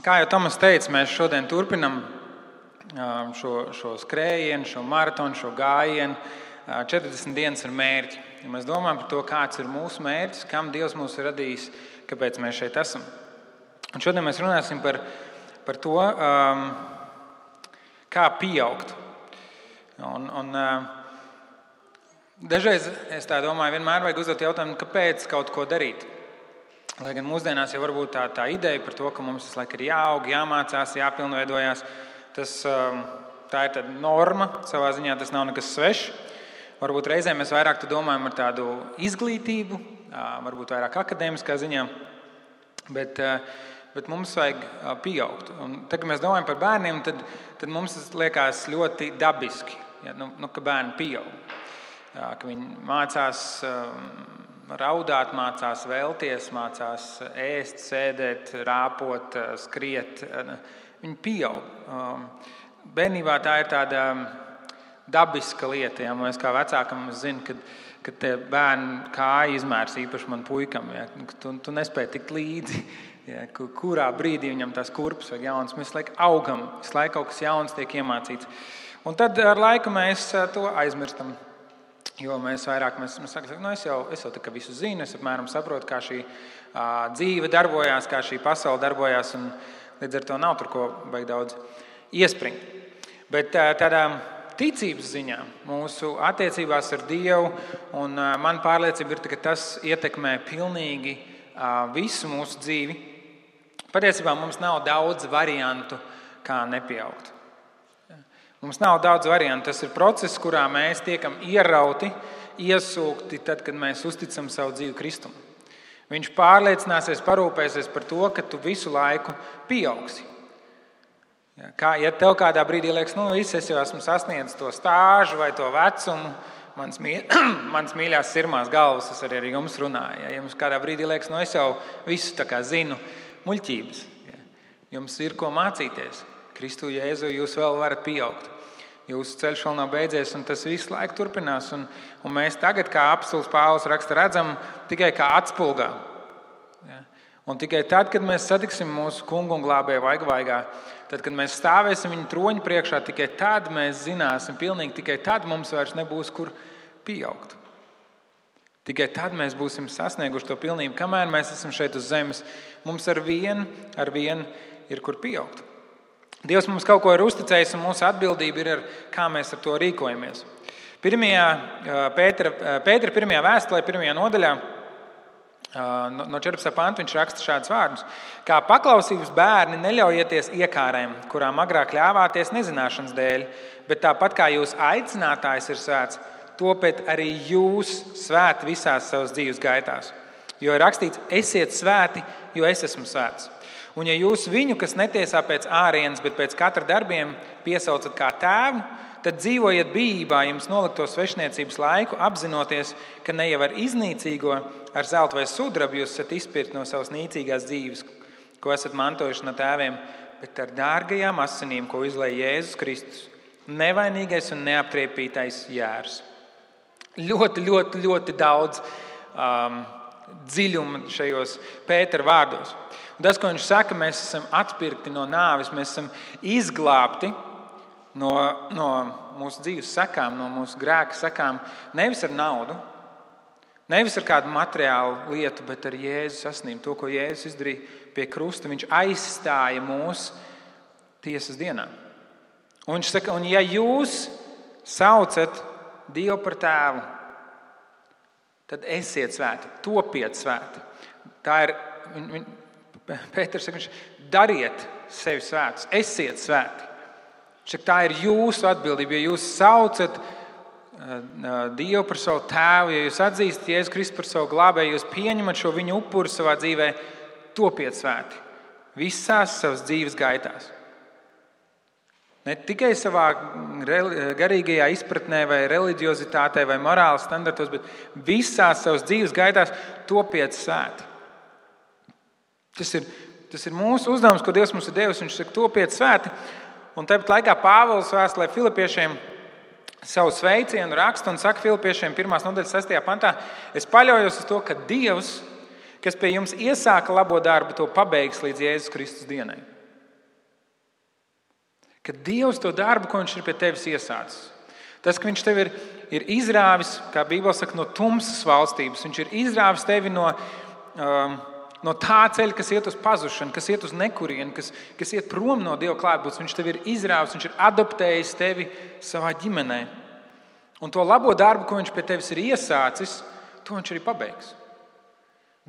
Kā jau Tomas teica, mēs šodien turpinam šo skrējienu, šo maratonu, šo gājienu. 40 dienas ar mērķi. Ja mēs domājam par to, kāds ir mūsu mērķis, kam Dievs mūs ir radījis, kāpēc mēs šeit esam. Un šodien mēs runāsim par to, kā pieaugt. Dažreiz es tā domāju, vienmēr vajag uzdot jautājumu, kāpēc kaut ko darīt. Lai gan mūsdienās jau varbūt tā ideja par to, ka mums visu laiku ir jāaug, jāmācās, jāpilnveidojās, tā ir tāda norma, savā ziņā tas nav nekas svešs. Varbūt reizēm mēs vairāk domājam ar tādu izglītību, varbūt vairāk akadēmiskā ziņā, bet mums vajag pieaugt. Un tad, kad mēs domājam par bērniem, tad mums tas liekas ļoti dabiski, ka bērni pieaug. Ka viņi mācās raudāt, mācās vēlties, mācās ēst, sēdēt, rāpot, skriet. Viņi pieaug. Bērnībā tā ir tāda dabiska lieta. Ja? Mēs kā vecākam zinu, ka tie bērni kāja izmērs īpaši man puikam. Ja? Tu nespēji tikt līdzi. Ja? Kurā brīdī viņam tās kurpes vajag jauns. Mēs laiku augam, visu laiku kaut kas jauns tiek iemācīts. Un tad ar laiku mēs to aizmirstam. Jo mēs sakām, es jau tā kā visu zinu, es apmēram saprotu, kā šī dzīve darbojās, kā šī pasaule darbojās, un līdz ar to nav tur ko baigi daudz iespringt. Bet tādā ticības ziņā, mūsu attiecībās ar Dievu, un man pārliecība ir, ka tas ietekmē pilnīgi visu mūsu dzīvi. Patiesībā mums nav daudz variantu, kā nepieaugt. Mums nav daudz variantu. Tas ir process, kurā mēs tiekam ierauti, iesūkti tad, kad mēs uzticam savu dzīvi Kristum. Viņš pārliecināsies, parūpēsies par to, ka tu visu laiku pieaugsi. Ja tev kādā brīdī liekas, es jau esmu sasniedzis to stāžu vai to vecumu, mans mīļās sirmās galvas, es arī ar jums runāju. Ja jums kādā brīdī liekas, es jau visu tā kā zinu, muļķības. Jums ir ko mācīties. Kristu Jēzu jūs vēl varat pieaugt. Jūsu ceļš vēl nav beidzies, un tas visu laiku turpinās. Un mēs tagad, kā apostols Pāvils raksta, redzam tikai kā atspulgā. Ja? Un tikai tad, kad mēs satiksim mūsu kungu un glābēju vaigā, tad, kad mēs stāvēsim viņa troņa priekšā, tikai tad mēs zināsim, pilnīgi tikai tad mums vairs nebūs kur pieaugt. Tikai tad mēs būsim sasnieguši to pilnību. Kamēr mēs esam šeit uz zemes, mums ar vienu ir kur pieaugt. Dievs mums kaut ko ir uzticējis, un mūsu atbildība ir, kā mēs ar to rīkojamies. Pētera pirmajā vēstulē, 1. nodaļā, no 14. panta viņš raksta šādus vārdus. Kā paklausības bērni neļaujieties iekārēm, kurām agrāk ļāvāties nezināšanas dēļ, bet tāpat kā jūs aicinātājs ir svēts, topiet arī jūs svēti visās savas dzīves gaitās. Jo ir rakstīts, esiet svēti, jo es esmu svēts. Un ja jūs viņu, kas netiesā pēc ārienes, bet pēc katra darbiem piesaucat kā tēvu, tad dzīvojiet bijībā jums nolikto svešniecības laiku, apzinoties, ka ne jau ar iznīcīgo, ar zeltu vai sudrabu jūs esat izpirkti no savas nīcīgās dzīves, ko esat mantojuši no tēviem, bet ar dārgajām asinīm, ko izlēja Jēzus Kristus, nevainīgais un neaptriepītais jērs. Ļoti, ļoti, ļoti daudz dziļuma šajos Pētera vārdos. Un tas, ko viņš saka, mēs esam atpirkti no nāves, mēs esam izglābti no mūsu dzīves sekām, no mūsu grēka sekām, nevis ar naudu, nevis ar kādu materiālu lietu, bet ar Jēzus asinīm. To, ko Jēzus izdarīja pie krusta, viņš aizstāja mūs tiesas dienā. Un viņš saka, un ja jūs saucat Dievu par tēvu, tad esiet svēti, topiet svēti. Tā ir, Pēters saka, dariet sevi svētus, esiet svēti. Tā ir jūsu atbildība, ja jūs saucat Dievu par savu tēvu, ja jūs atzīstat Jēzu Kristu par savu glābēju, jūs pieņemat šo viņu upuru savā dzīvē, topiet svēti visās savas dzīves gaitās. Ne tikai savā garīgajā izpratnē vai reliģiozitātē vai morāles standartos, bet visās savas dzīves gaitās topiet svēti. Tas ir mūsu uzdevums, ko Dievs mums ir devis. Viņš saka, topiet svēti. Un tāpat laikā Pāvils vēstulē Filipiešiem savu sveicienu raksta un saka Filipiešiem 1. nodaļas 6. pantā: es paļaujos uz to, ka Dievs, kas pie jums iesāka labo darbu, to pabeigs līdz Jēzus Kristus dienai. Ka Dievs to darbu, ko viņš ir pie tevis iesācis. Tas, ka viņš tevi ir izrāvis, kā Bībele saka, no tumsas valstības. Viņš ir izrāvis tevi no tā ceļa, kas iet uz pazušanu, kas iet uz nekurienu, kas iet prom no Dieva klātbūtnes. Viņš tevi ir izrāvis, viņš ir adoptējis tevi savā ģimenē. Un to labo darbu, ko viņš pie tevis ir iesācis, to viņš arī pabeigs.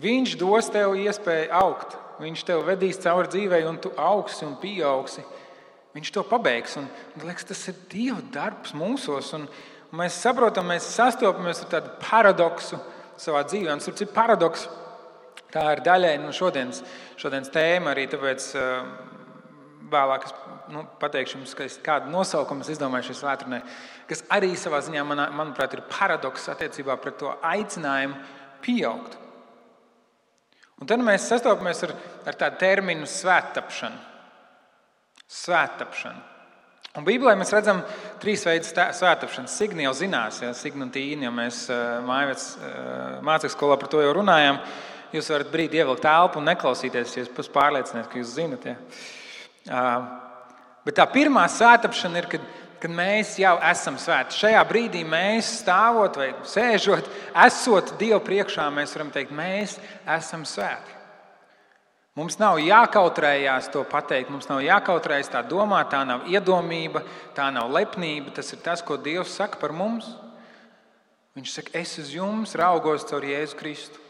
Viņš dos tev iespēju augt. Viņš tev vedīs cauri dzīvei, un tu augsi un pieaugsi. Viņš to pabeigs. Un liekas, tas ir Dieva darbs mūsos. Un mēs saprotam, mēs sastopamies ar tādu paradoksu savā dzīvē. Un tas ir paradoks. Tā ir daļai no šodienas tēma arī, tāpēc vēlāk es pateikšu jums, kādu nosaukumu es izdomāju šai svētdienai, kas arī savā ziņā, manuprāt, ir paradoks attiecībā pret to aicinājumu pieaugt. Un tad mēs sastopamies ar tādu terminu svēttapšanu. Svēttapšana. Un Bībelē mēs redzam 3 veidus svēttapšanas. Signi jau zinās, Signi un Tīni, jo mēs mācekļu skolā par to jau runājām. Jūs varat brīdi ievilkt telpu un neklausīties, ja jūs pārliecināties, ka jūs zinat. Bet tā pirmā svēttapšana ir, kad mēs jau esam svēti. Šajā brīdī mēs stāvot vai sēžot, esot Dievu priekšā, mēs varam teikt, mēs esam svēti. Mums nav jākautrējās to pateikt, mums nav jākautrējas tā domāt, tā nav iedomība, tā nav lepnība. Tas ir tas, ko Dievs saka par mums. Viņš saka, es uz jums raugos caur Jēzu Kristu.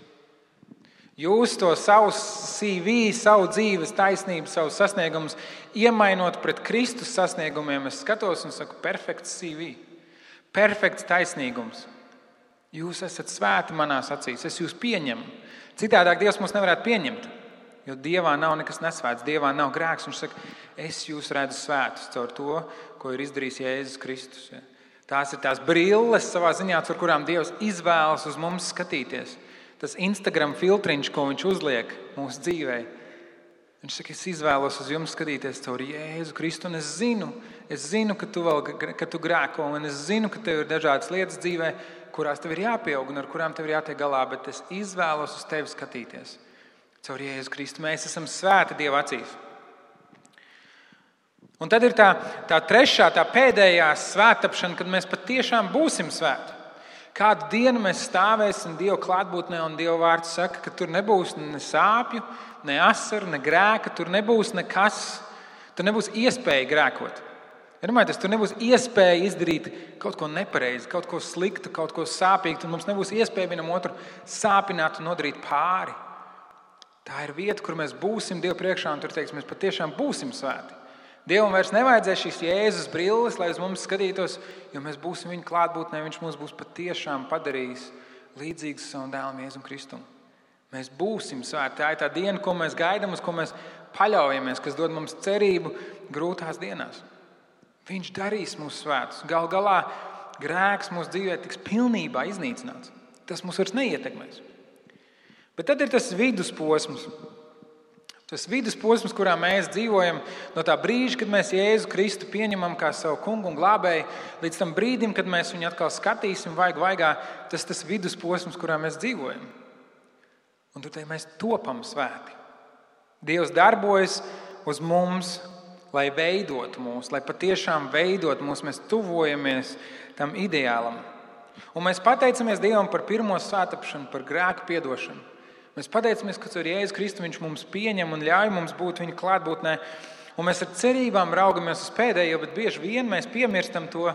Jūs to savu CV, savu dzīves taisnību, savus sasniegumus iemainot pret Kristus sasniegumiem, es skatos un saku, perfekts CV, perfekts taisnīgums. Jūs esat svēti manās acīs, es jūs pieņemu. Citādāk Dievs mūs nevarētu pieņemt, jo Dievā nav nekas nesvēts, Dievā nav grēks. Viņš saka, es jūs redzu svētus caur to, ko ir izdarījis Jēzus Kristus. Tās ir tās brilles savā ziņā, caur kurām Dievs izvēlas uz mums skatīties. Tas Instagram filtriņš, ko viņš uzliek mūsu dzīvē. Viņš saka, es izvēlos uz jums skatīties caur Jēzu Kristu, un es zinu, ka tu grēko, un es zinu, ka tev ir dažādas lietas dzīvē, kurās tev ir jāpieaug un ar kurām tev ir jātiek galā, bet es izvēlos uz tevi skatīties caur Jēzu Kristu. Mēs esam svēti Dieva acīs. Un tad ir tā trešā, tā pēdējā svēttapšana, kad mēs patiešām būsim svēti. Kādu dienu mēs stāvēsim Dieva klātbūtnē, un Dieva vārds saka, ka tur nebūs ne sāpju, ne asaru, ne grēka, tur nebūs nekas, tur nebūs iespēja grēkot. Tur nebūs iespēja izdarīt kaut ko nepareizi, kaut ko sliktu, kaut ko sāpīgu, un mums nebūs iespēja vienam otru sāpināt un nodarīt pāri. Tā ir vieta, kur mēs būsim Dieva priekšā, un tur teiks, mēs patiešām būsim svēti. Dievam vairs nevajadzēs šīs Jēzus brilles, lai uz mums skatītos, jo mēs būsim viņa klātbūtnē, viņš mūs būs patiešām padarījis līdzīgus savam dēlam Jēzum Kristum. Mēs būsim svēti. Tā ir tā diena, ko mēs gaidām, uz ko mēs paļaujamies, kas dod mums cerību grūtās dienās. Viņš darīs mūs svētus. Gal galā grēks mūsu dzīvē tiks pilnībā iznīcināts. Tas mūs vairs neietekmēs. Bet tad ir tas vidusposms. Tas vidusposms, kurā mēs dzīvojam, no tā brīža, kad mēs Jēzu Kristu pieņemam kā savu kungu un glābēju, līdz tam brīdim, kad mēs viņu atkal skatīsim vaigā, tas vidusposms, kurā mēs dzīvojam. Un tur mēs topam svēti. Dievs darbojas uz mums, lai veidotu mūs, lai patiešām veidotu mūs, mēs tuvojamies tam ideālam. Un mēs pateicamies Dievam par pirmo svētapšanu, par grēku piedošanu. Mēs pateicamies, ka ar Jēzu Kristu viņš mums pieņem un ļauj mums būt viņa klātbūtnē. Un mēs ar cerībām raugamies uz pēdējo, bet bieži vien mēs piemirstam to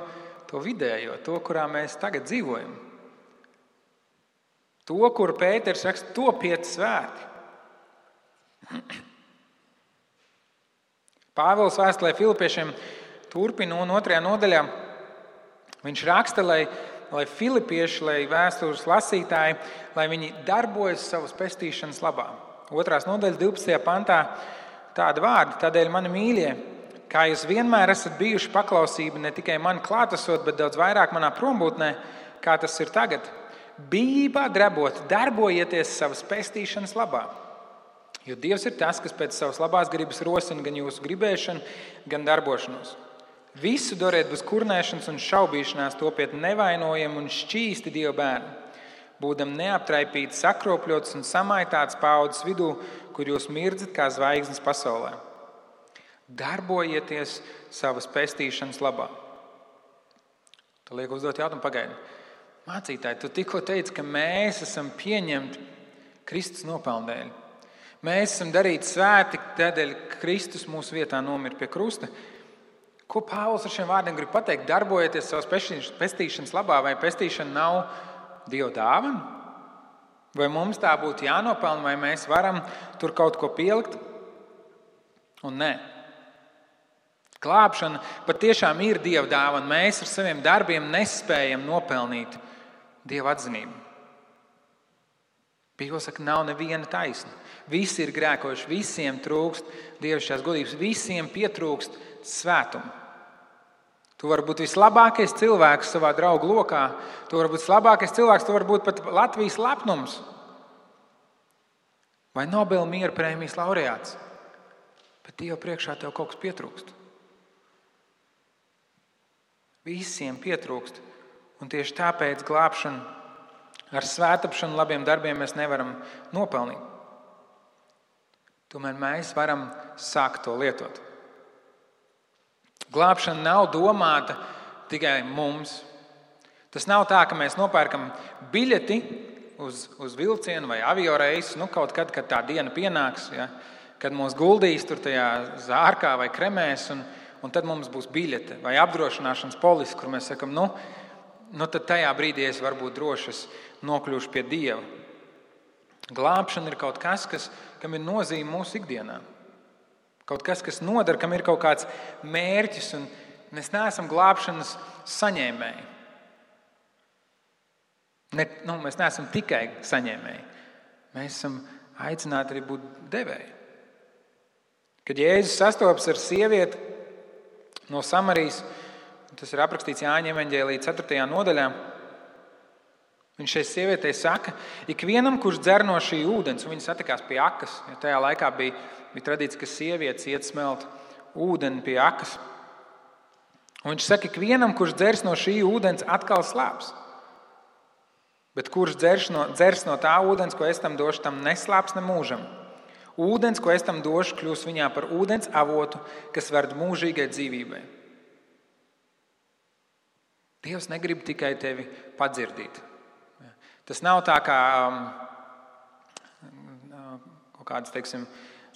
vidējo, to, kurā mēs tagad dzīvojam. To, kur Pēters raksta, topiet svēti. Pāvils vēstulē Filipiešiem turpina un 2. nodaļā. Viņš raksta, lai filipieši, lai vēstures lasītāji, lai viņi darbojas savas pestīšanas labā. 2. nodaļas 12. pantā tāda vārda, tādēļ mani mīļie, kā jūs vienmēr esat bijuši paklausība ne tikai man klātesot, bet daudz vairāk manā prombūtnē, kā tas ir tagad. Bijībā drebot, darbojieties savas pestīšanas labā. Jo Dievs ir tas, kas pēc savas labās gribas rosina gan jūsu gribēšanu, gan darbošanos. Visu dariet bez kurnēšanas un šaubīšanās, topiet nevainojami un šķīsti Dieva bērni, būdam neaptraipīti, sakropļots un samaitāts paaudzes vidū, kur jūs mirdzat kā zvaigznes pasaulē. Darbojieties savas pestīšanas labā. Tu liek uzdot jautājumu, pagaidi. Mācītāji, tu tikko teici, ka mēs esam pieņemti Kristus nopelnu dēļ. Mēs esam darīti svēti, tādēļ Kristus mūsu vietā nomira pie krusta. Ko Pāvils ar šiem vārdiem grib pateikt? Darbojieties savas pestīšanas labā, vai pestīšana nav Dieva dāvana? Vai mums tā būtu jānopelna, vai mēs varam tur kaut ko pielikt? Un nē. Glābšana patiešām ir Dieva dāvana. Mēs ar saviem darbiem nespējam nopelnīt Dieva atzinību. Bībele saka, nav neviena taisna. Visi ir grēkojuši, visiem trūkst dievišķās godības, visiem pietrūkst svētumu. Tu vari būt vislabākais cilvēks savā draugu lokā, tu vari būt vislabākais cilvēks, tu vari būt pat Latvijas lepnums vai Nobela miera prēmijas laureāts, bet Dieva priekšā tev kaut kas pietrūkst. Visiem pietrūkst, un tieši tāpēc glābšanu ar svētapšanu, labiem darbiem mēs nevaram nopelnīt. Tomēr mēs varam sākt to lietot. Glābšana nav domāta tikai mums. Tas nav tā, ka mēs nopērkam biļeti uz vilcienu vai avioreisu, kaut kad tā diena pienāks, ja, kad mūs guldīs tur tajā zārkā vai kremēs, un tad mums būs biļete vai apdrošināšanas polise, kur mēs sakam, tad tajā brīdī es varbūt droši nokļūšu pie Dieva. Glābšana ir kaut kas, kam ir nozīme mūsu ikdienā. Kaut kas, kas nodara, kam ir kaut kāds mērķis, un mēs neesam glābšanas saņēmēji. Mēs neesam tikai saņēmēji. Mēs esam aicināti arī būt devēji. Kad Jēzus sastopas ar sievieti no Samarijas, tas ir aprakstīts Jāņa evaņģēlija 4. nodaļā, viņš šai sievietei saka, ikvienam, kurš dzer no šī ūdens, un viņi satikās pie akas, jo tajā laikā bija tradīcija, ka sievietes iet smelt ūdeni pie akas. Un viņš saka, ikvienam, kurš dzers no šī ūdens, atkal slāps. Bet kurš dzers no tā ūdens, ko es tam došu, tam neslāps ne mūžam. Ūdens, ko es tam došu, kļūs viņā par ūdens avotu, kas ved mūžīgai dzīvībai. Dievs negrib tikai tevi padzirdīt. Tas nav tā kā kaut kādas, teiksim,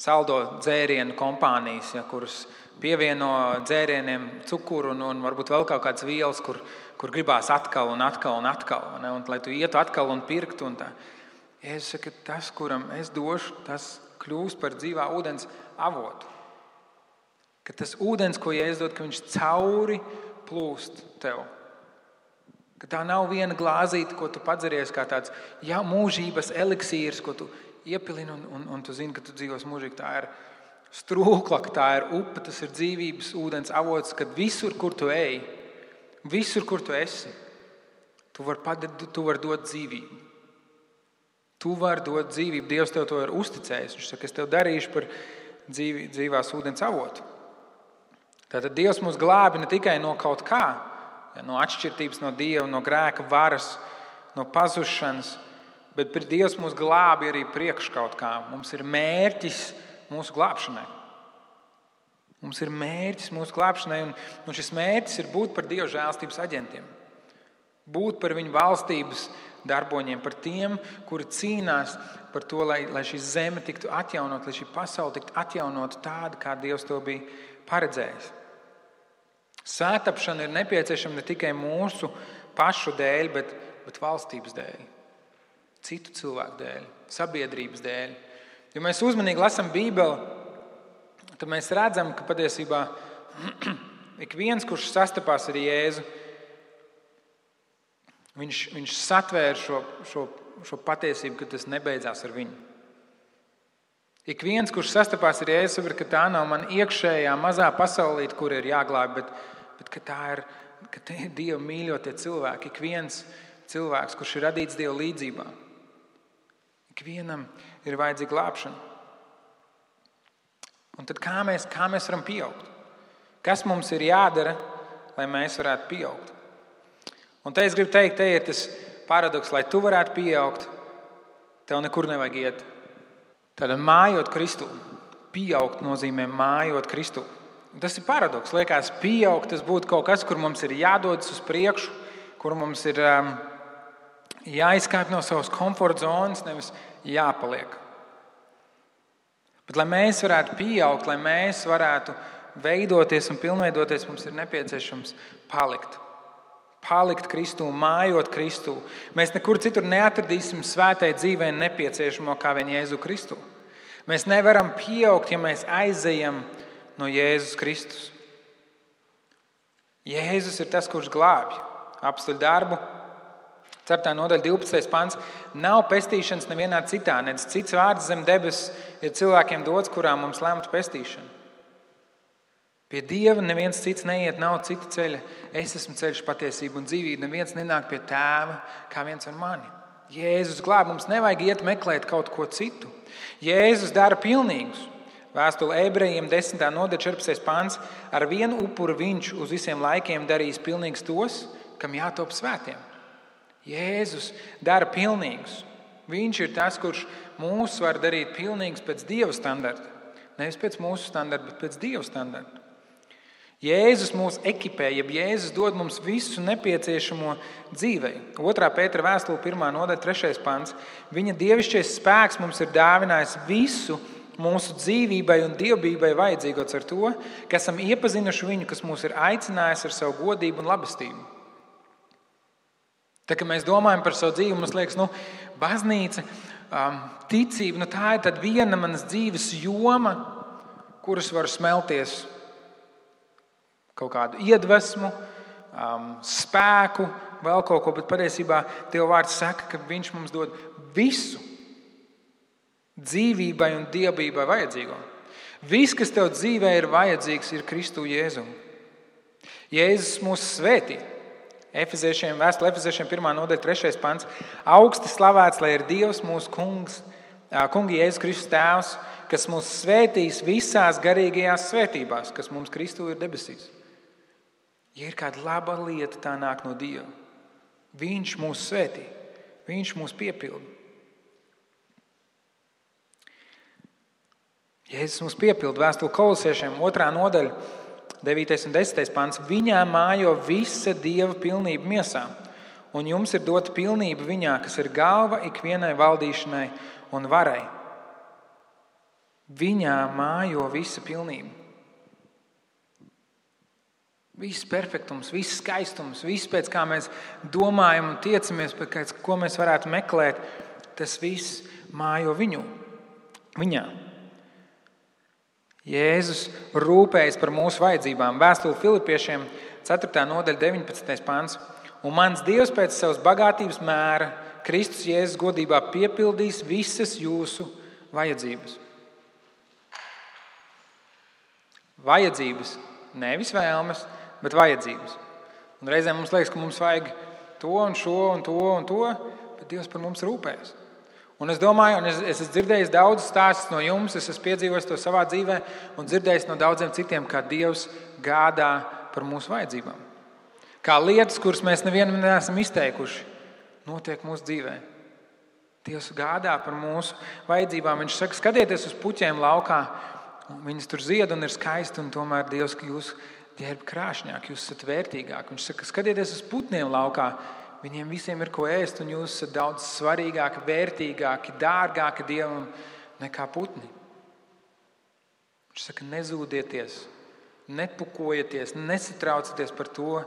saldo dzērienu kompānijas, kuras pievieno dzērieniem cukuru un varbūt vēl kaut kādas vielas, kur gribās atkal un atkal un atkal, ne? Un lai tu ietu atkal un pirktu. Un tā. Jēzus saka, tas, kuram es došu, tas kļūs par dzīvā ūdens avotu. Ka tas ūdens, ko Jēzus dod, ka viņš cauri plūst tev. Ka tā nav viena glāzīte, ko tu padzeries kā tāds mūžības eliksīrs, ko tu iepilini un tu zini, ka tu dzīvos mūžīgi. Tā ir strūkla, tā ir upe, tas ir dzīvības ūdens avots, kad visur, kur tu ej, visur, kur tu esi, tu vari dot dzīvību. Tu vari dot dzīvību. Dievs tev to ir uzticējis. Viņš saka, es tev darīšu par dzīvās ūdens avotu. Tātad Dievs mūs glābi ne tikai no kaut kā, no atšķirtības no Dieva, no grēka varas, no pazušanas, bet Dievs mūs glābi arī priekš kaut kā. Mums ir mērķis mūsu glābšanai. Mums ir mērķis mūsu glābšanai, un šis mērķis ir būt par Dieva žēlstības aģentiem. Būt par viņu valstības darboņiem, par tiem, kuri cīnās par to, lai šī zeme tiktu atjaunot, lai šī pasaule tiktu atjaunot tāda, kā Dievs to bija paredzējis. Svētapšana ir nepieciešama ne tikai mūsu pašu dēļ, bet valstības dēļ, citu cilvēku dēļ, sabiedrības dēļ. Ja mēs uzmanīgi lasām Bībeli, tad mēs redzam, ka patiesībā ik viens, kurš sastapās ar Jēzu, viņš satvēra šo patiesību, ka tas nebeidzās ar viņu. Ik viens, kurš sastapās ar Jēzu, saprot, ka tā nav man iekšējā mazā pasaulīte, kur ir jāglāb, bet ka tie ir Dieva mīļotie cilvēki. Ik viens cilvēks, kurš ir radīts Dieva līdzībā. Ik vienam ir vajadzīga glābšana. Un tad kā mēs varam pieaugt? Kas mums ir jādara, lai mēs varētu pieaugt? Un te es gribu teikt, te ir tas paradoks, lai tu varētu pieaugt, tev nekur nevajag iet. Tad mājot Kristū. Pieaugt nozīmē mājot Kristū. Tas ir paradoks. Liekas, pieaugt, tas būtu kaut kas, kur mums ir jādodas uz priekšu, kur mums ir jāizkāp no savas komforta zonas, nevis jāpaliek. Bet, lai mēs varētu pieaugt, lai mēs varētu veidoties un pilnveidoties, mums ir nepieciešams palikt. Palikt Kristū, mājot Kristū. Mēs nekur citur neatradīsim svētai dzīvei nepieciešamo kā vien Jēzu Kristu. Mēs nevaram pieaugt, ja mēs aizejam no Jēzus Kristus. Jēzus ir tas, kurš glābj. Apstuļu darbu, 4. nodaļa, 12. pants. Nav pestīšanas nevienā citā, nedz cits vārds zem debesis ir cilvēkiem dots, kurā mums lemta pestīšana. Pie Dieva neviens cits neiet, nav cita ceļa. Es esmu ceļš, patiesība un dzīvība. Neviens nenāk pie Tēva kā viens ar mani. Jēzus glāb, mums nevajag iet meklēt kaut ko citu. Jēzus dara pilnīgus. Vēstule Ebrejiem 10. nodaļa 14. pants. Ar vienu upuru viņš uz visiem laikiem darīs pilnīgus tos, kam jātop svētiem. Jēzus dara pilnīgus. Viņš ir tas, kurš mūs var darīt pilnīgus pēc Dieva standarta. Nevis pēc mūsu standarta, bet pēc Dieva standarta. Jēzus mūs ekipē, jeb Jēzus dod mums visu nepieciešamo dzīvei. 2. Pētera vēstule 1. nodaļa 3. pants. Viņa dievišķais spēks mums ir dāvinājis visu mūsu dzīvībai un dievbijai vajadzīgots ar to, ka esam iepazinuši viņu, kas mūs ir aicinājis ar savu godību un labestību. Tā, kad mēs domājam par savu dzīvi, mums liekas, baznīca, ticība, tā ir tad viena manas dzīves joma, kuras var smelties kaut kādu iedvesmu, spēku, vēl kaut ko, bet patiesībā Dieva vārds saka, ka viņš mums dod visu dzīvībai un dievbijai vajadzīgo. Viss, kas tev dzīvē ir vajadzīgs, ir Kristu Jēzu. Jēzus mūs svētī. Vēstule Efeziešiem 1. nodaļa 3. pants. Augsti slavēts, lai ir Dievs mūsu kungi Jēzus Kristus tēvs, kas mūs svētīs visās garīgajās svētībās, kas mums Kristu ir debesīs. Ja ir kāda laba lieta, tā nāk no Dieva. Viņš mūs svētī. Viņš mūs piepilda. Jēzus mūs piepilda. Vēstule Kolosiešiem 2. nodaļa 9. un 10. pants. Viņā mājo visa Dieva pilnība miesā, un jums ir dota pilnība viņā, kas ir galva ikvienai valdīšanai un varai. Viņā mājo visa pilnība. Viss perfektums, viss skaistums, viss pēc kā mēs domājam un tiecamies, pēc ko mēs varētu meklēt, tas viss mājo viņā. Jēzus rūpējas par mūsu vajadzībām. Vēstule Filipiešiem 4. nodaļa 19. pants. Un mans Dievs pēc savas bagātības mēra Kristus Jēzus godībā piepildīs visas jūsu vajadzības. Vajadzības, nevis vēlmes, bet vajadzības. Un reizēm mums liekas, ka mums vajag to un šo un to un to, bet Dievs par mums rūpējas. Un es domāju, un es esmu dzirdējis daudzus stāstus no jums, es esmu piedzīvojis to savā dzīvē un dzirdējis no daudziem citiem, kā Dievs gādā par mūsu vajadzībām. Kā lietas, kuras mēs nevienam neesam izteikuši, notiek mūsu dzīvē. Dievs gādā par mūsu vajadzībām. Viņš saka, skatieties uz puķiem laukā, viņas tur zied un ir skaisti, un tomēr Dievs, ka jūs ģērb krāšņāk, jūs esat vērtīgāk. Viņš saka, skatieties uz putniem laukā, viņiem visiem ir ko ēst, un jūs esat daudz svarīgāki, vērtīgāki, dārgāki Dievam nekā putni. Viņš saka, nezūdieties, nepukojieties, nesatraucieties par to,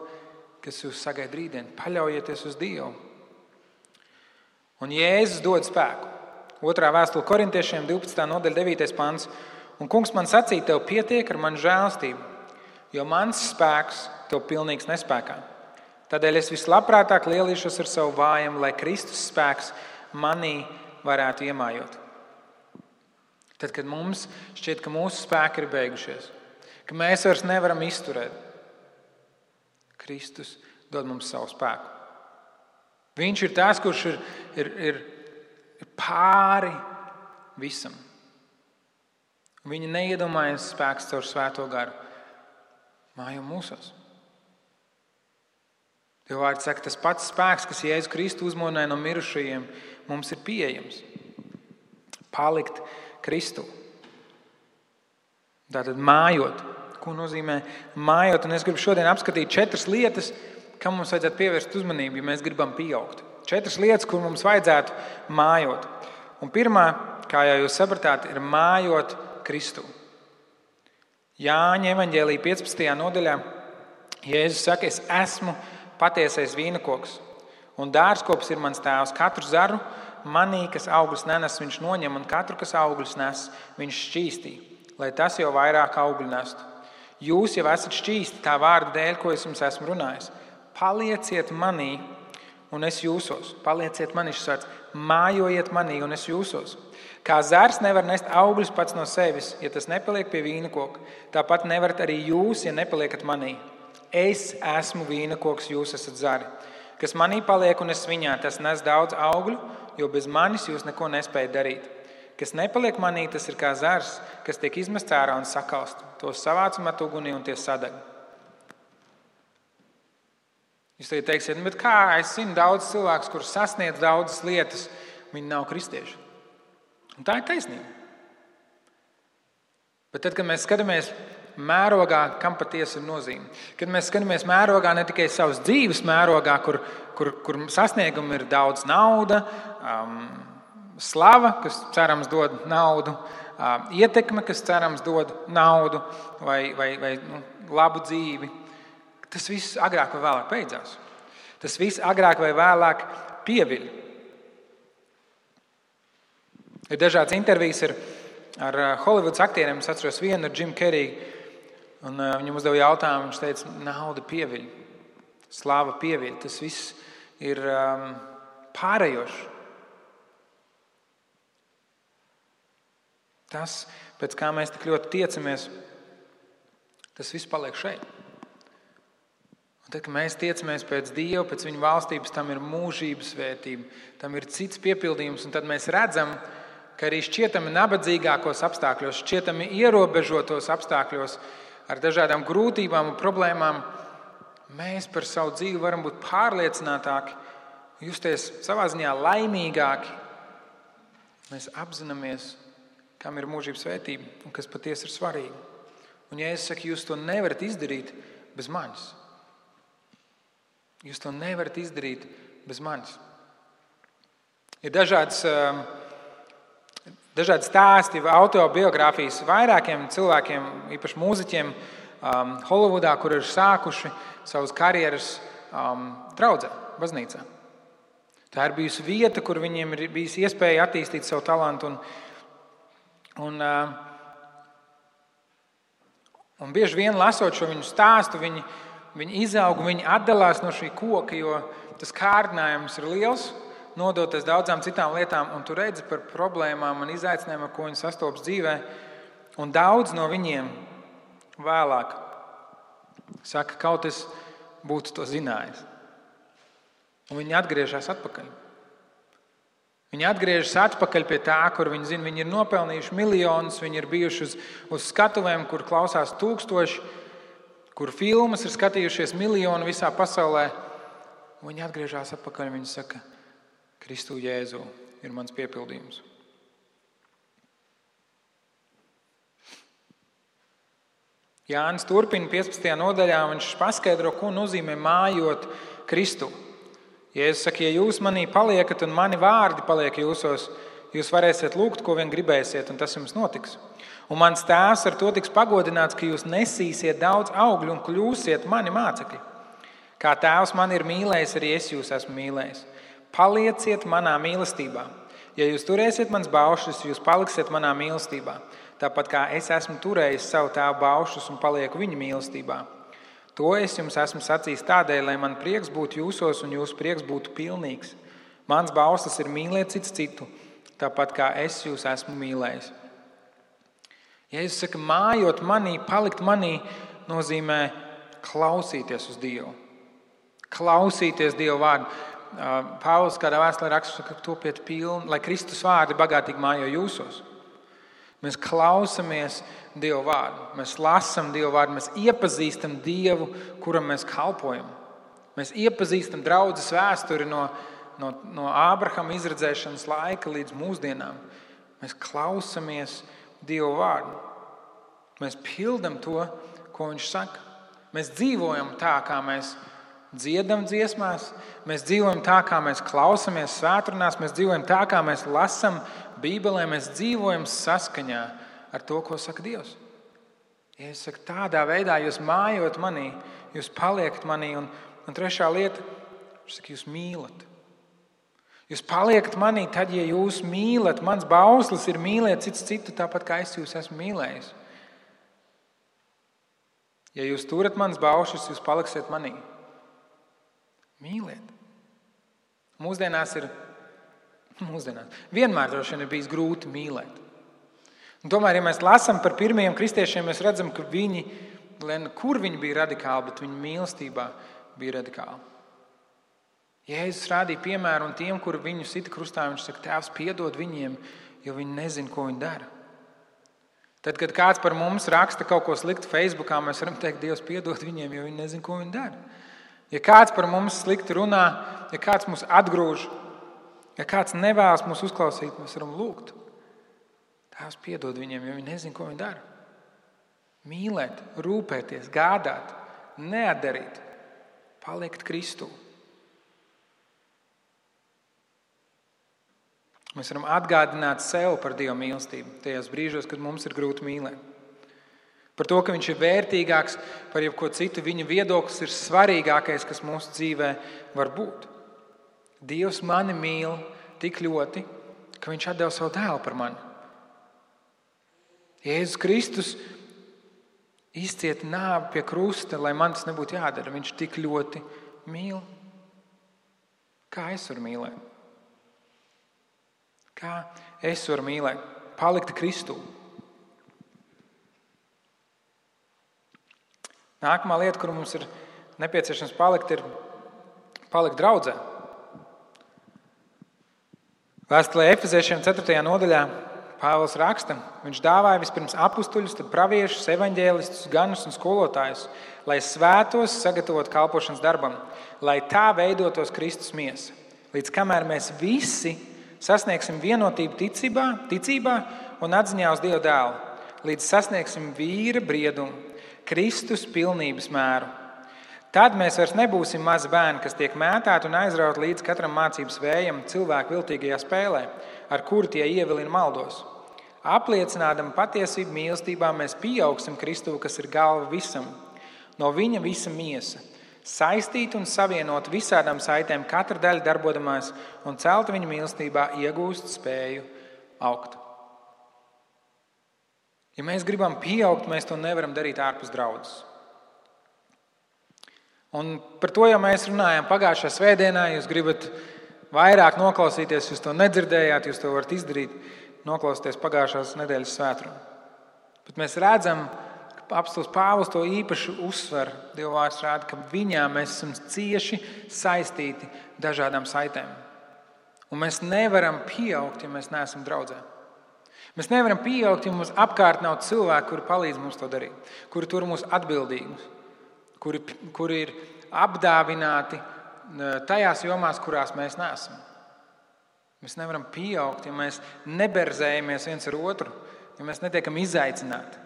kas jūs sagaida rītdien. Paļaujieties uz Dievu. Un Jēzus dod spēku. 2. vēstule Korintiešiem 12. nodaļa 9. pants. Un kungs man sacīja, tev pietiek ar manu žēlstību, jo mans spēks tev pilnīgs nespēkā. Tādēļ es vislabprātāk lielīšos ar savu vājumu, lai Kristus spēks manī varētu iemājot. Tad, kad mums šķiet, ka mūsu spēki ir beigušies, ka mēs vairs nevaram izturēt, Kristus dod mums savu spēku. Viņš ir tas, kurš ir pāri visam. Viņa neiedomājas spēks caur svēto garu mājo mūsos. Dieva vārds saka, tas pats spēks, kas Jēzu Kristu uzmodināja no mirušajiem, mums ir pieejams. Palikt Kristu. Tātad mājot. ko nozīmē mājot. Un es gribu šodien apskatīt 4 lietas, kam mums vajadzētu pievērst uzmanību, ja mēs gribam pieaugt. 4 lietas, kur mums vajadzētu mājot. Un pirmā, kā jau jūs sapratāt, ir mājot Kristu. Jāņa evaņģēlija 15. nodaļā Jēzus saka, es esmu patiesais vīnakoks, un dārzkops ir mans tēvs. Katru zaru manī, kas augļus nenes, viņš noņem, un katru, kas augļus nes, viņš šķīstī, lai tas jau vairāk augļu nestu. Jūs jau esat šķīsti tā vārda dēļ, ko es jums esmu runājis. Palieciet manī, un es jūsos. Palieciet manī, šis vārds. Mājojiet manī, un es jūsos. Kā zars nevar nest augļus pats no sevis, ja tas nepaliek pie vīnakoka. Tāpat nevarat arī jūs, ja nepaliekat manī. Es esmu vīnakoks, jūs esat zari. Kas manī paliek un es viņā, tas nes daudz augļu, jo bez manis jūs neko nespējat darīt. Kas nepaliek manī, tas ir kā zars, kas tiek izmests ārā un sakalst. Tos savāc un met ugunī un tie sadeg. Jūs teiksiet, bet kā es zinu daudz cilvēkus, kurus sasniedz daudzas lietas, viņi nav kristieši. Un tā ir taisnība. Bet tad, kad mēs skatāmies mērogā, kam patiesi ir nozīme, kad mēs skatāmies mērogā ne tikai savas dzīves mērogā, kur sasniegumi ir daudz nauda, slava, kas cerams dod naudu, ietekme, kas cerams dod naudu vai labu dzīvi, tas viss agrāk vai vēlāk beidzās. Tas viss agrāk vai vēlāk pieviļ. Ir dažādas intervijas ar Holivudas aktieriem. Es atceros vienu ar Jimu Kerriju. Un viņam uzdeva jautājumu. Viņš teica, nauda pieviļ, slava pieviļ. Tas viss ir pārējošs. Tas, pēc kā mēs tik ļoti tiecamies, tas viss paliek šeit. Un tad, kad mēs tiecamies pēc Dieva, pēc viņa valstības, tam ir mūžības svētība, tam ir cits piepildījums. Un tad mēs redzam, ka arī šķietami nabadzīgākos apstākļos, šķietami ierobežotos apstākļos, ar dažādām grūtībām un problēmām, mēs par savu dzīvi varam būt pārliecinātāki, justies savā ziņā laimīgāki. Mēs apzināmies, kam ir mūžības svētība un kas patiesi ir svarīgi. Un ja es saku, jūs to nevarat izdarīt bez manis. Jūs to nevarat izdarīt bez manis. Ir dažādi stāsti, autobiogrāfijas vairākiem cilvēkiem, īpaši mūziķiem Holivudā, kur ir sākuši savas karjeras draudzē, baznīcā. Tā ir bijusi vieta, kur viņiem ir bijis iespēja attīstīt savu talantu. Un bieži vien lasot šo viņu stāstu, viņi izaug, viņi atdalās no šī koka, jo tas kārdinājums ir liels, nodoties daudzām citām lietām, un tu redzi par problēmām un izaicinājumiem, ar ko viņi sastopas dzīvē. Un daudz no viņiem vēlāk saka, kaut es būtu to zinājis. Un viņi atgriežas atpakaļ. Viņi atgriežas atpakaļ pie tā, kur viņi zina, viņi ir nopelnījuši miljonus, viņi ir bijuši uz skatuvēm, kur klausās 1000, kur filmas ir skatījušies miljoni visā pasaulē. Un viņi atgriežas atpakaļ un viņi saka, Kristu Jēzu ir mans piepildījums. Jānis turpina 15. nodaļā, viņš paskaidro, ko nozīmē mājot Kristu. Jēzus saka, ja jūs manī paliekat un mani vārdi paliek jūsos, jūs varēsiet lūgt, ko vien gribēsiet, un tas jums notiks. Un mans tēvs ar to tiks pagodināts, ka jūs nesīsiet daudz augļu un kļūsiet mani mācekļi. Kā tēvs mani ir mīlējis, arī es jūs esmu mīlējis. Palieciet manā mīlestībā. Ja jūs turēsiet mans baušļus, jūs paliksiet manā mīlestībā. Tāpat kā es esmu turējis savu tēvu baušļus un palieku viņa mīlestībā. To es jums esmu sacījis tādēļ, lai man prieks būtu jūsos un jūsu prieks būtu pilnīgs. Mans bauslis ir mīlēt cits citu, tāpat kā es jūs esmu mīlējis. Jēzus saka, mājot manī, palikt manī, nozīmē klausīties uz Dievu. Klausīties Dievu vārdu. Pāvils kādā vēstulē raksta, ka topiet pilni, lai Kristus vārdi bagātīgi mājo jūsos. Mēs klausamies Dievu vārdu, mēs lasam Dievu vārdu, mēs iepazīstam Dievu, kuram mēs kalpojam. Mēs iepazīstam draudzes vēsturi no Ābrahama izredzēšanas laika līdz mūsdienām. Mēs klausamies Dievu vārdu. Mēs pildam to, ko viņš saka. Mēs dzīvojam tā, kā mēs dziedam dziesmās, mēs dzīvojam tā, kā mēs klausamies svētrunās, mēs dzīvojam tā, kā mēs lasam Bībelē, mēs dzīvojam saskaņā ar to, ko saka Dievs. Ja es saku, tādā veidā jūs mājot manī, jūs paliekat manī, un trešā lieta, viņš saka, jūs mīlat. Jūs paliekat manī tad, ja jūs mīlat. Mans bauslis ir mīlēt cits citu, tāpat kā es jūs esmu mīlējis. Ja jūs turat manas baušas, jūs paliksiet manī. Mīliet. Mūsdienās vienmēr droši vien ir bijis grūti mīlēt. Un tomēr, ja mēs lasām par pirmajiem kristiešiem, mēs redzam, ka viņi, kur viņi bija radikāli, bet viņu mīlestībā bija radikāli. Jēzus rādīja piemēru, un tiem, kuri viņu sita krustā, viņš saka, Tēvs, piedod viņiem, jo viņi nezina, ko viņi dara. Tad, kad kāds par mums raksta kaut ko sliktu Facebookā, mēs varam teikt, Dievs, piedod viņiem, jo viņi nezina, ko viņi dara. Ja kāds par mums slikti runā, ja kāds mūs atgrūž, ja kāds nevēlas mūs uzklausīt, mēs varam lūgt. Tēvs, piedod viņiem, jo viņi nezina, ko viņi dara. Mīlēt, rūpēties, gādāt, neatdarīt, palikt Kristū. Mēs varam atgādināt sev par Dieva mīlestību tajos brīžos, kad mums ir grūti mīlēt. Par to, ka viņš ir vērtīgāks par jebko citu, viņa viedoklis ir svarīgākais, kas mūsu dzīvē var būt. Dievs mani mīl tik ļoti, ka viņš atdeva savu dēlu par mani. Jēzus Kristus izcieta nāvi pie krusta, lai man tas nebūtu jādara. Viņš tik ļoti mīl. Kā es varu mīlēt? Kā es varu mīlēt? Palikt Kristū. Nākamā lieta, kur mums ir nepieciešams palikt, ir palikt draudzē. Vēstulē Efeziešiem 4. nodaļā Pāvils raksta, viņš dāvāja vispirms apustuļus, tad praviešus, evaņģēlistus, ganus un skolotājus, lai svētos sagatavot kalpošanas darbam, lai tā veidotos Kristus miesa. Līdz kamēr mēs visi sasniegsim vienotību ticībā un atziņā uz Dieva dēlu, līdz sasniegsim vīra briedumu, Kristus pilnības mēru. Tad mēs vairs nebūsim mazi bērni, kas tiek mētāti un aizraut līdz katram mācības vējam cilvēku viltīgajā spēlē, ar kuru tie ievilina maldos. Apliecinādam patiesību mīlestībā, mēs pieaugsim Kristu, kas ir galva visam. No viņa visa miesa. Saistīt un savienot visādām saitēm, katra daļa darbodamās un celta viņa mīlestībā iegūst spēju augt. Ja mēs gribam pieaugt, mēs to nevaram darīt ārpus draudzes. Un par to jau mēs runājām pagājušā svētdienā. Jūs gribat vairāk noklausīties, jūs to nedzirdējāt, jūs to varat izdarīt, noklausīties pagājušās nedēļas svētkrunu. Bet mēs redzam, ka apostils Pāvils to īpaši uzsver. Dieva vārds rāda, ka viņā mēs esam cieši saistīti dažādām saitēm. Un mēs nevaram pieaugt, ja mēs neesam draudzē. Mēs nevaram pieaugt, ja mums apkārt nav cilvēki, kuri palīdz mums to darīt, kuri tur mūs atbildīgus, kuri ir apdāvināti tajās jomās, kurās mēs neesam. Mēs nevaram pieaugt, ja mēs neberzējamies viens ar otru, ja mēs netiekam izaicināti.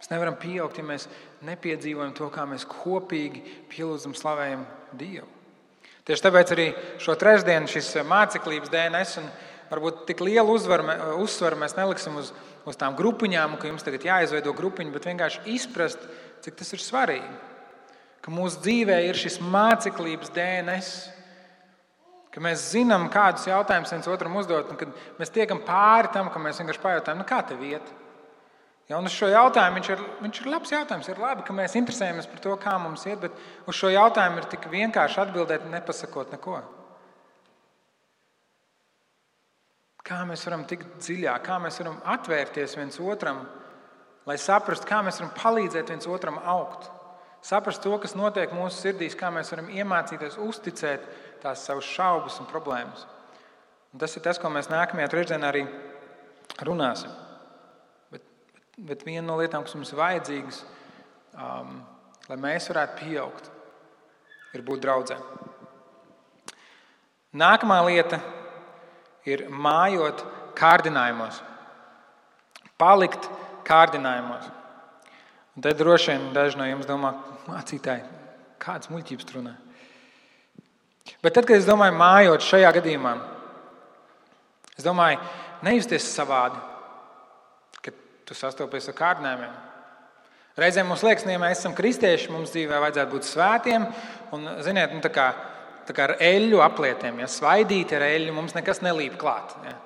Mēs nevaram pieaugt, ja mēs nepiedzīvojam to, kā mēs kopīgi pielūdzam, slavējam Dievu. Tieši tāpēc arī šo trešdienu šis māceklības DNS un varbūt tik lielu uzsvaru mēs neliksim uz tām grupiņām, ka jums tagad jāizveido grupiņi, bet vienkārši izprast, cik tas ir svarīgi. Ka mūsu dzīvē ir šis māceklības DNS, ka mēs zinām, kādus jautājumus viens otram uzdot, un kad mēs tiekam pāri tam, ka mēs vienkārši pajautājam, kā tev iet? Ja, un uz šo jautājumu viņš ir labs jautājums. Ir labi, ka mēs interesējamies par to, kā mums iet, bet uz šo jautājumu ir tik vienkārši atbildēt, nepasakot neko. Kā mēs varam tikt dziļāk, kā mēs varam atvērties viens otram, lai saprastu, kā mēs varam palīdzēt viens otram augt. Saprast to, kas notiek mūsu sirdīs, kā mēs varam iemācīties uzticēt tās savas šaubas un problēmas. Un tas ir tas, ko mēs nākamajā trešdienā arī runāsim. Bet viena no lietām, kas mums ir vajadzīgas, lai mēs varētu pieaugt, ir būt draudzē. Nākamā lieta ir mājot kārdinājumos. Palikt kārdinājumos. Un te droši vien daži no jums domā, mācītāji, kādas muļķības tur runā. Bet tad, kad es domāju, mājot šajā gadījumā, es domāju, nejusties savādi, kad tu sastopies ar kārdinājumiem. Reizēm mums liekas, ja mēs esam kristieši, mums dzīvē vajadzētu būt svētiem, un, ziniet, tā kā ar eļļu aplietiem, ja svaidīti ar eļļu, mums nekas nelīp klāt. Ja.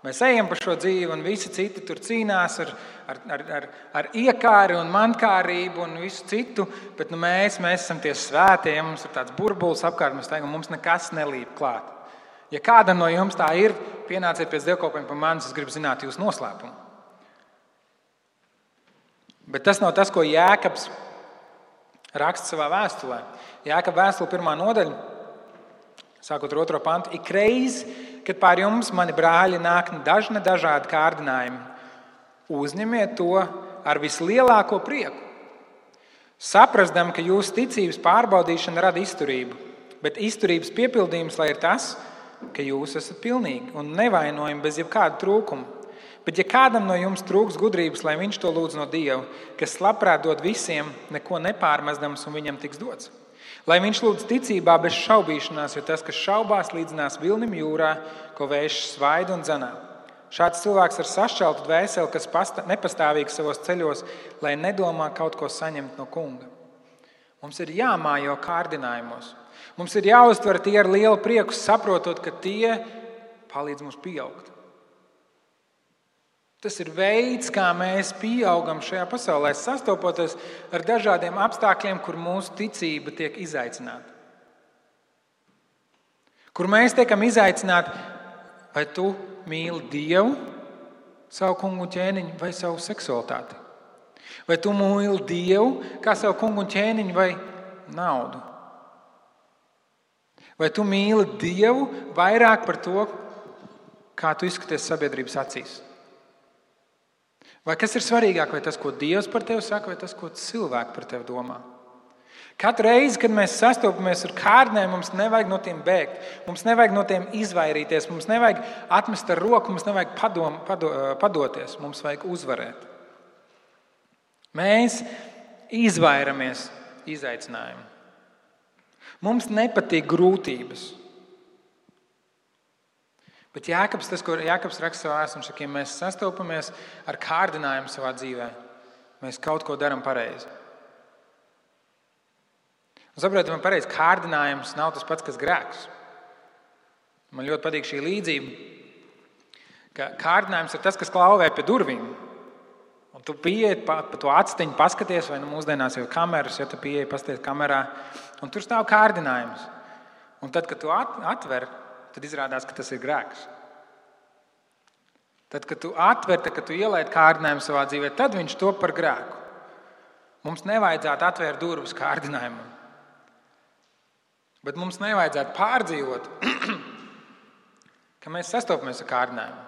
Mēs ejam pa šo dzīvi, un visi citi tur cīnās ar iekāri un mankārību un visu citu, bet mēs esam tie svētie, ja mums ir tāds burbulis apkārt, mēs teikam, mums nekas nelīp klāt. Ja kādam no jums tā ir, pienāciet pēc dievkalpojuma pie manis, es gribu zināt jūsu noslēpumu. Bet tas nav tas, ko Jēkabs raksta savā vēstulē. Jēkaba vēstule 1. nodaļa, sākot ar 2. pantu. Ikreiz, kad pār jums, mani brāļi, nāk dažādi kārdinājumi, uzņemiet to ar vislielāko prieku. Saprasdam, ka jūsu ticības pārbaudīšana rada izturību, bet izturības piepildījums lai ir tas, ka jūs esat pilnīgi un nevainojami bez jebkāda trūkuma. Bet ja kādam no jums trūks gudrības, lai viņš to lūdz no Dieva, kas labprāt dod visiem, neko nepārmestams un viņam tiks dots. Lai viņš lūdz ticībā bez šaubīšanās, jo tas, kas šaubās, līdzinās vilnim jūrā, ko vējš svaida un dzenā. Šāds cilvēks ar sašķeltu dvēseli, kas nepastāvīgs savos ceļos, lai nedomā kaut ko saņemt no kunga. Mums ir jāmājo kārdinājumos. Mums ir jāuztver tie ar lielu prieku, saprotot, ka tie palīdz mums pieaugt. Tas ir veids, kā mēs pieaugam šajā pasaulē, sastopoties ar dažādiem apstākļiem, kur mūsu ticība tiek izaicināta. Kur mēs tiekam izaicināti, vai tu mīli Dievu, savu kungu un ķēniņu vai savu seksualitāti? Vai tu mīli Dievu kā savu kungu un ķēniņu vai naudu? Vai tu mīli Dievu vairāk par to, kā tu izskaties sabiedrības acīs? Vai kas ir svarīgāk, vai tas, ko Dievs par tevi saka, vai tas, ko cilvēki par tevi domā? Katru reizi, kad mēs sastopamies ar kārdinājumiem, mums nevajag no tiem bēgt, mums nevajag no tiem izvairīties, mums nevajag atmest ar roku, mums nevajag padoties, mums vajag uzvarēt. Mēs izvairamies izaicinājumu. Mums nepatīk grūtības. Bet Jēkabs, tas, ko Jēkabs raksta savā vēstulē, saka, ja mēs sastopamies ar kārdinājumu savā dzīvē, mēs kaut ko darām pareizi. Un saprotiet, man pareizi, kārdinājums nav tas pats, kas grēks. Man ļoti patīk šī līdzība, ka kārdinājums ir tas, kas klauvē pie durvīm. Un tu pieeji pa to atstiņu, paskaties, vai mūsdienās jau kameras, ja tu pieeji, paskaties kamerā, un tur stāv kārdinājums. Un tad, kad tu atver, tad izrādās, ka tas ir grēks. Tad, kad tu atver, kad tu ielaid kārdinājumu savā dzīvē, tad viņš top par grēku. Mums nevajadzētu atvērt durvis kārdinājumam. Bet mums nevajadzētu pārdzīvot, ka mēs sastopamies ar kārdinājumu.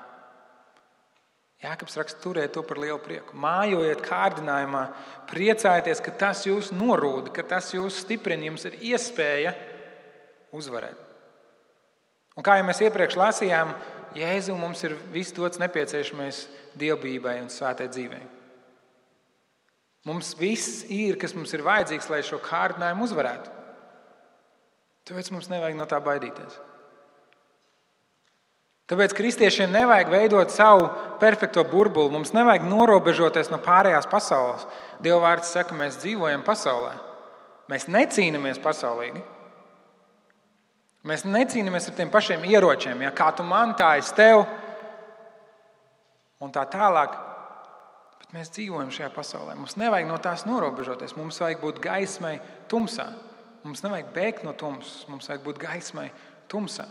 Jēkabs raksta, turiet to par lielu prieku. Mājojiet kārdinājumā, priecājieties, ka tas jūs norūda, ka tas jūs stiprina, jums ir iespēja uzvarēt. Un kā jau mēs iepriekš lasījām, Jēzu mums ir viss dots nepieciešamais dievbijībai un svētai dzīvei. Mums viss ir, kas mums ir vajadzīgs, lai šo kārdinājumu uzvarētu. Tāpēc mums nevajag no tā baidīties. Tāpēc kristiešiem nevajag veidot savu perfekto burbuli. Mums nevajag norobežoties no pārējās pasaules. Dieva vārds saka, mēs dzīvojam pasaulē. Mēs necīnamies pasaulīgi. Mēs necīnāmies ar tiem pašiem ieročiem, ja kā tu man, tā es tev, un tā tālāk. Bet mēs dzīvojam šajā pasaulē. Mums nevajag no tās norobežoties. Mums vajag būt gaismai tumsā. Mums nevajag bēgt no tumsas. Mums vajag būt gaismai tumsā.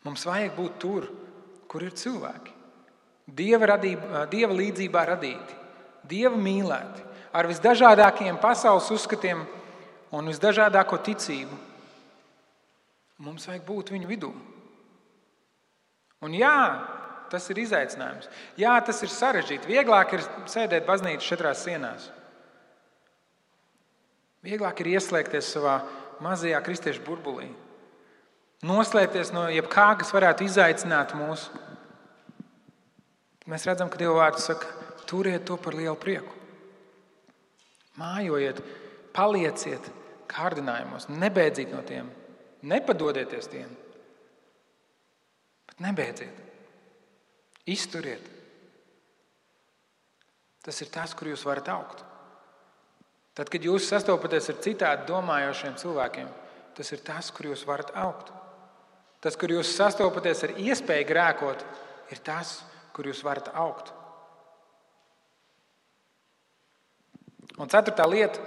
Mums vajag būt tur, kur ir cilvēki. Dieva līdzībā radīti, Dieva mīlēti, ar visdažādākajiem pasaules uzskatiem un visdažādāko ticību. Mums vajag būt viņu vidū. Un jā, tas ir izaicinājums. Jā, tas ir sarežģīti. Vieglāk ir sēdēt baznīcas 4 sienās. Vieglāk ir ieslēgties savā mazajā kristiešu burbulī. Noslēpties no jebkā, kas varētu izaicināt mūs. Mēs redzam, ka Dieva vārds saka, turiet to par lielu prieku. Mājojiet, palieciet kārdinājumos, nebeidziet no tiem, nepadodieties tiem, bet nebeidziet, izturiet. Tas ir tas, kur jūs varat augt. Tad, kad jūs sastopaties ar citādi domājošiem cilvēkiem, tas ir tas, kur jūs varat augt. Tas, kur jūs sastopaties ar iespēju grēkot, ir tas, kur jūs varat augt. Un ceturtā lieta,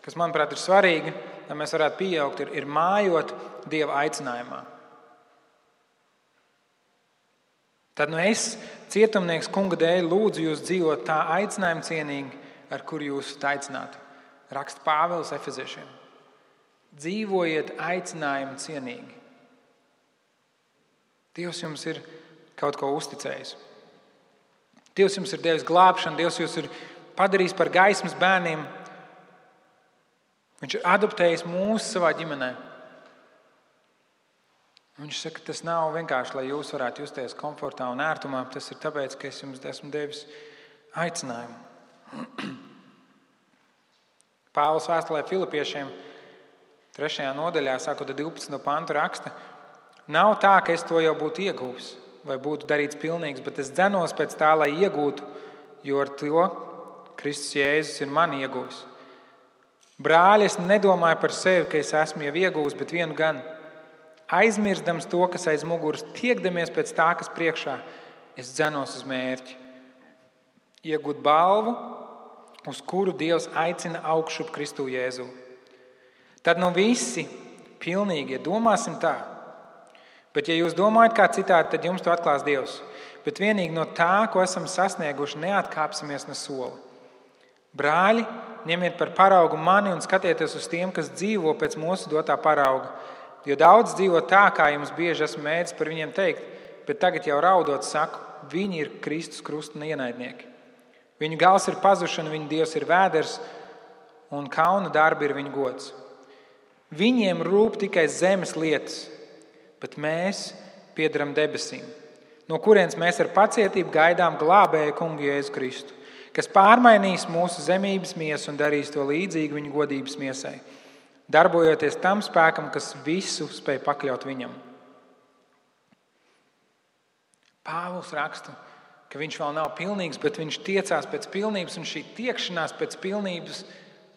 kas, manuprāt, ir svarīga, lai mēs varētu pieaugt, ir mājot Dieva aicinājumā. Tad es, cietumnieks Kunga dēļ, lūdzu jūs dzīvot tā aicinājuma cienīgi, ar kuru jūs esat aicināti. Raksta Pāvils Efeziešiem. Dzīvojiet aicinājumu cienīgi. Dievs jums ir kaut ko uzticējis. Dievs jums ir devis glābšanu, Dievs jūs ir padarījis par gaismas bērniem. Viņš ir adoptējis mūs savā ģimenē. Viņš saka, ka tas nav vienkārši, lai jūs varētu justies komfortā un ērtumā. Tas ir tāpēc, ka es jums esmu devis aicinājumu. Pāvils vēstulē Filipiešiem 3. nodaļā, sākot ar 12. pantu raksta: Nav tā, ka es to jau būtu ieguvis vai būtu darīts pilnīgs, bet es dzenos pēc tā, lai iegūtu, jo ar to Kristus Jēzus ir mani ieguvis. Brāļi, es nedomāju par sevi, ka es esmu jau ieguvis, bet vienu gan. Aizmirstams to, kas aiz muguras, tiekdamies pēc tā, kas priekšā, es dzenos uz mērķi. Iegūt balvu, uz kuru Dievs aicina augšup Kristu Jēzu. Tad visi pilnīgi domāsim tā. Bet, ja jūs domājat kā citādi, tad jums to atklās Dievs. Bet vienīgi no tā, ko esam sasnieguši, neatkāpsimies ne soli. Brāļi, ņemiet par paraugu mani un skatieties uz tiem, kas dzīvo pēc mūsu dotā parauga. Jo daudz dzīvo tā, kā jums bieži esmu mēģis par viņiem teikt, bet tagad jau raudot saku, viņi ir Kristus krusta ienaidnieki. Viņu gals ir pazušana, viņu Dievs ir vēders un kauna darbi ir viņu gods. Viņiem rūp tikai zemes lietas, bet mēs piederam debesīm, no kurienes mēs ar pacietību gaidām glābēju Kungu Jēzu Kristu, kas pārmainīs mūsu zemības miesu un darīs to līdzīgu viņa godības miesai, darbojoties tam spēkam, kas visu spēj pakļaut viņam. Pāvils raksta, ka viņš vēl nav pilnīgs, bet viņš tiecās pēc pilnības, un šī tiekšanās pēc pilnības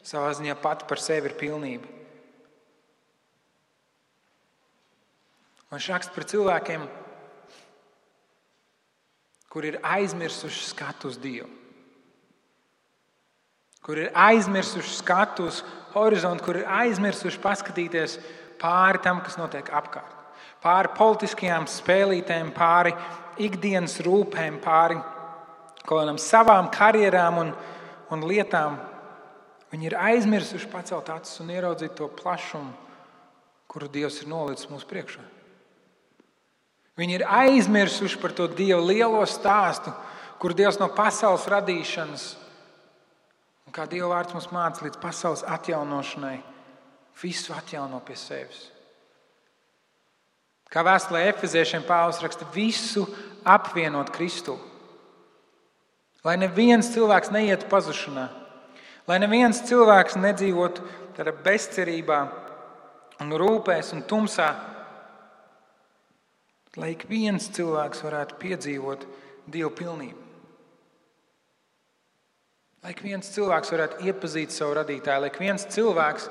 savā ziņā pati par sevi ir pilnība. Un viņš raksta par cilvēkiem, kur ir aizmirsuši skatu uz Dievu, kur ir aizmirsuši skatu uz horizontu, kur ir aizmirsuši paskatīties pāri tam, kas notiek apkārt. Pāri politiskajām spēlītēm, pāri ikdienas rūpēm, pāri kaut kādām savām karjerām un lietām. Viņi ir aizmirsuši pacelt acis un ieraudzīt to plašumu, kuru Dievs ir nolicis mūsu priekšā. Viņi ir aizmirsuši par to Dieva lielo stāstu, kur Dievs no pasaules radīšanas un kā Dieva vārds mums māca līdz pasaules atjaunošanai, visu atjauno pie sevis. Kā vēstulē Efeziešiem Pāvils raksta, visu apvienot Kristu. Lai neviens cilvēks neietu pazušanā, lai neviens cilvēks nedzīvotu tādā bezcerībā un rūpēs un tumsā, lai ik viens cilvēks varētu piedzīvot Dieva pilnību. Lai ik viens cilvēks varētu iepazīt savu radītāju, lai ik viens cilvēks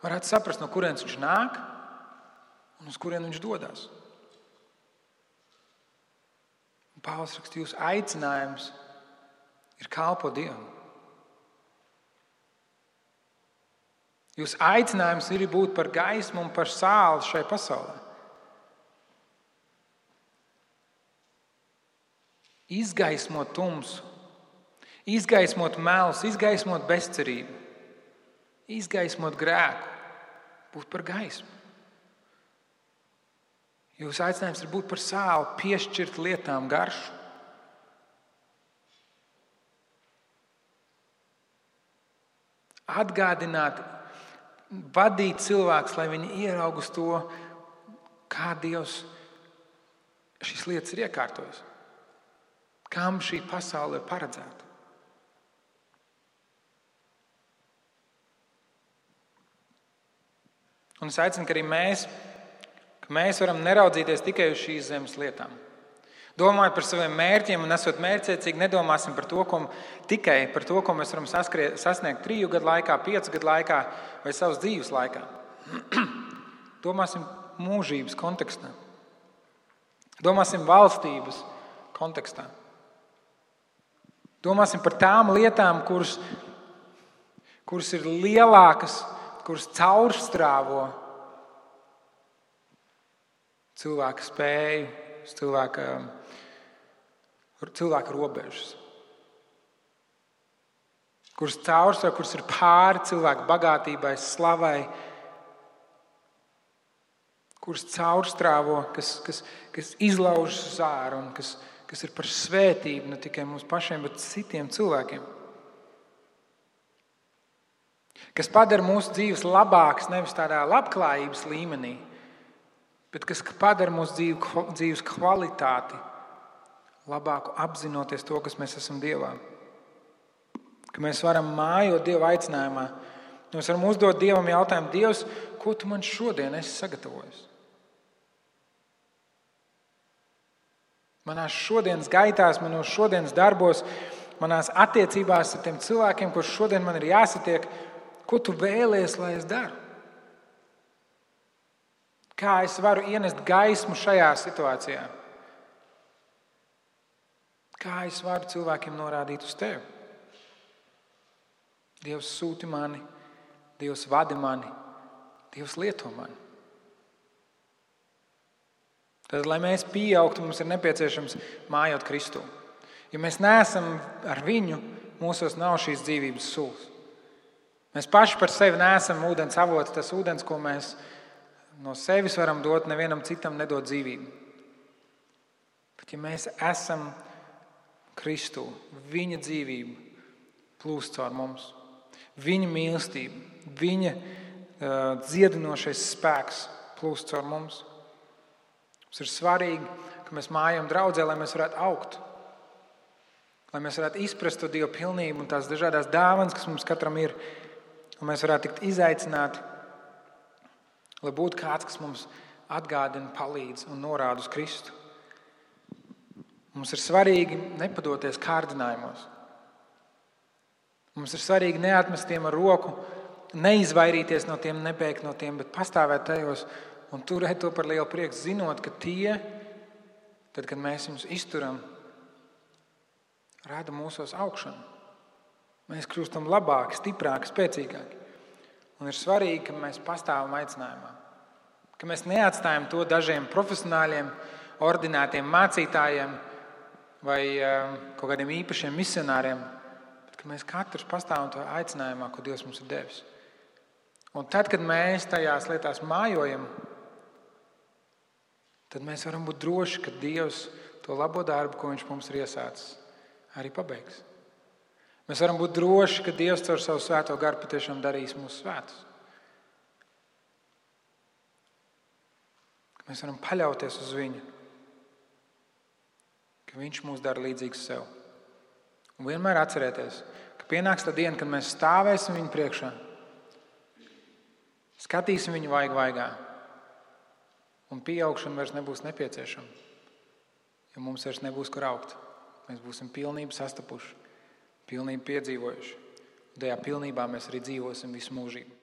varētu saprast, no kurienes viņš nāk un uz kurien viņš dodas. Pāvils raksta, jūsu aicinājums ir kalpot Dievam. Jūsu aicinājums ir būt par gaismu un par sāli šai pasaulē. Izgaismot tumsu, izgaismot melus, izgaismot bezcerību, izgaismot grēku, būt par gaismu. Jūsu aicinājums ir būt par sāli, piešķirt lietām garšu. Atgādināt, vadīt cilvēkus, lai viņi ieraug uz to, kā Dievs šīs lietas ir iekārtojis. Kam šī pasaule ir paredzēta? Un es aicinu, ka arī mēs varam neraudzīties tikai uz šīs zemes lietām. Domājot par saviem mērķiem un esot mērķiecīgi, nedomāsim tikai par to, ko mēs varam sasniegt 3 gadu laikā, 5 gadu laikā vai savas dzīves laikā. Domāsim mūžības kontekstā. Domāsim valstības kontekstā. Domāsim par tām lietām, kuras ir lielākas, kuras caurstrāvo cilvēka spēju, cilvēka robežas. Kuras caurstrāvo, kuras ir pāri cilvēka bagātībai, slavai, kuras caurstrāvo, kas izlaužas uz ārā un kas ir par svētību ne tikai mums pašiem, bet citiem cilvēkiem. Kas padara mūsu dzīves labākas nevis tādā labklājības līmenī, bet kas padara mūsu dzīves kvalitāti labāku apzinoties to, kas mēs esam Dievā. Ka mēs varam mājot Dieva aicinājumā. Mēs varam uzdot Dievam jautājumu: Dievs, ko tu man šodien esi sagatavojis? Manās šodienas gaitās, manos šodienas darbos, manās attiecībās ar tiem cilvēkiem, kurus šodien man ir jāsatiek, ko tu vēlies, lai es daru? Kā es varu ienest gaismu šajā situācijā? Kā es varu cilvēkiem norādīt uz tevi? Dievs sūti mani, Dievs vadi mani, Dievs lieto mani. Tad, lai mēs pieaugtu, mums ir nepieciešams mājot Kristu. Ja mēs neesam ar viņu, mūsos nav šīs dzīvības sulas. Mēs paši par sevi neesam ūdens avots, tas ūdens, ko mēs no sevis varam dot, nevienam citam nedod dzīvību. Bet ja mēs esam Kristu, viņa dzīvība plūst caur mums. Viņa mīlestība, viņa dziedinošais spēks plūst caur mums. Mums ir svarīgi, ka mēs mājam draudzē, lai mēs varētu augt. Lai mēs varētu izprast to Dieva pilnību un tās dažādās dāvanas, kas mums katram ir. Un mēs varētu tikt izaicināti, lai būtu kāds, kas mums atgādina, palīdz un norāda uz Kristu. Mums ir svarīgi nepadoties kārdinājumos. Mums ir svarīgi neatmest tiem ar roku, neizvairīties no tiem, nebēgt no tiem, bet pastāvēt tajos un turēt to par lielu prieku, zinot, ka tie, tad, kad mēs viņus izturam, rada mūsos augšanu. Mēs kļūstam labāki, stiprāki, spēcīgāki. Un ir svarīgi, ka mēs pastāvam aicinājumā. Ka mēs neatstājam to dažiem profesionāļiem, ordinētiem mācītājiem vai kaut kādiem īpašiem misionāriem, bet ka mēs katrs pastāvam to aicinājumā, ko Dievs mums ir devis. Un tad, kad mēs tajās lietās mājojam, tad mēs varam būt droši, ka Dievs to labo darbu, ko Viņš mums ir iesācis, arī pabeigs. Mēs varam būt droši, ka Dievs caur savu svēto garu patiešām darīs mūsu svētus. Mēs varam paļauties uz Viņu, ka Viņš mūs dara līdzīgus sev. Un vienmēr atcerēties, ka pienāks tā diena, kad mēs stāvēsim Viņu priekšā, skatīsim Viņu vaigā, un pieaugšana vairs nebūs nepieciešama, jo mums vairs nebūs kur augt. Mēs būsim pilnību sastapuši, pilnību piedzīvojuši. Un tajā pilnībā mēs arī dzīvosim visu mūžību.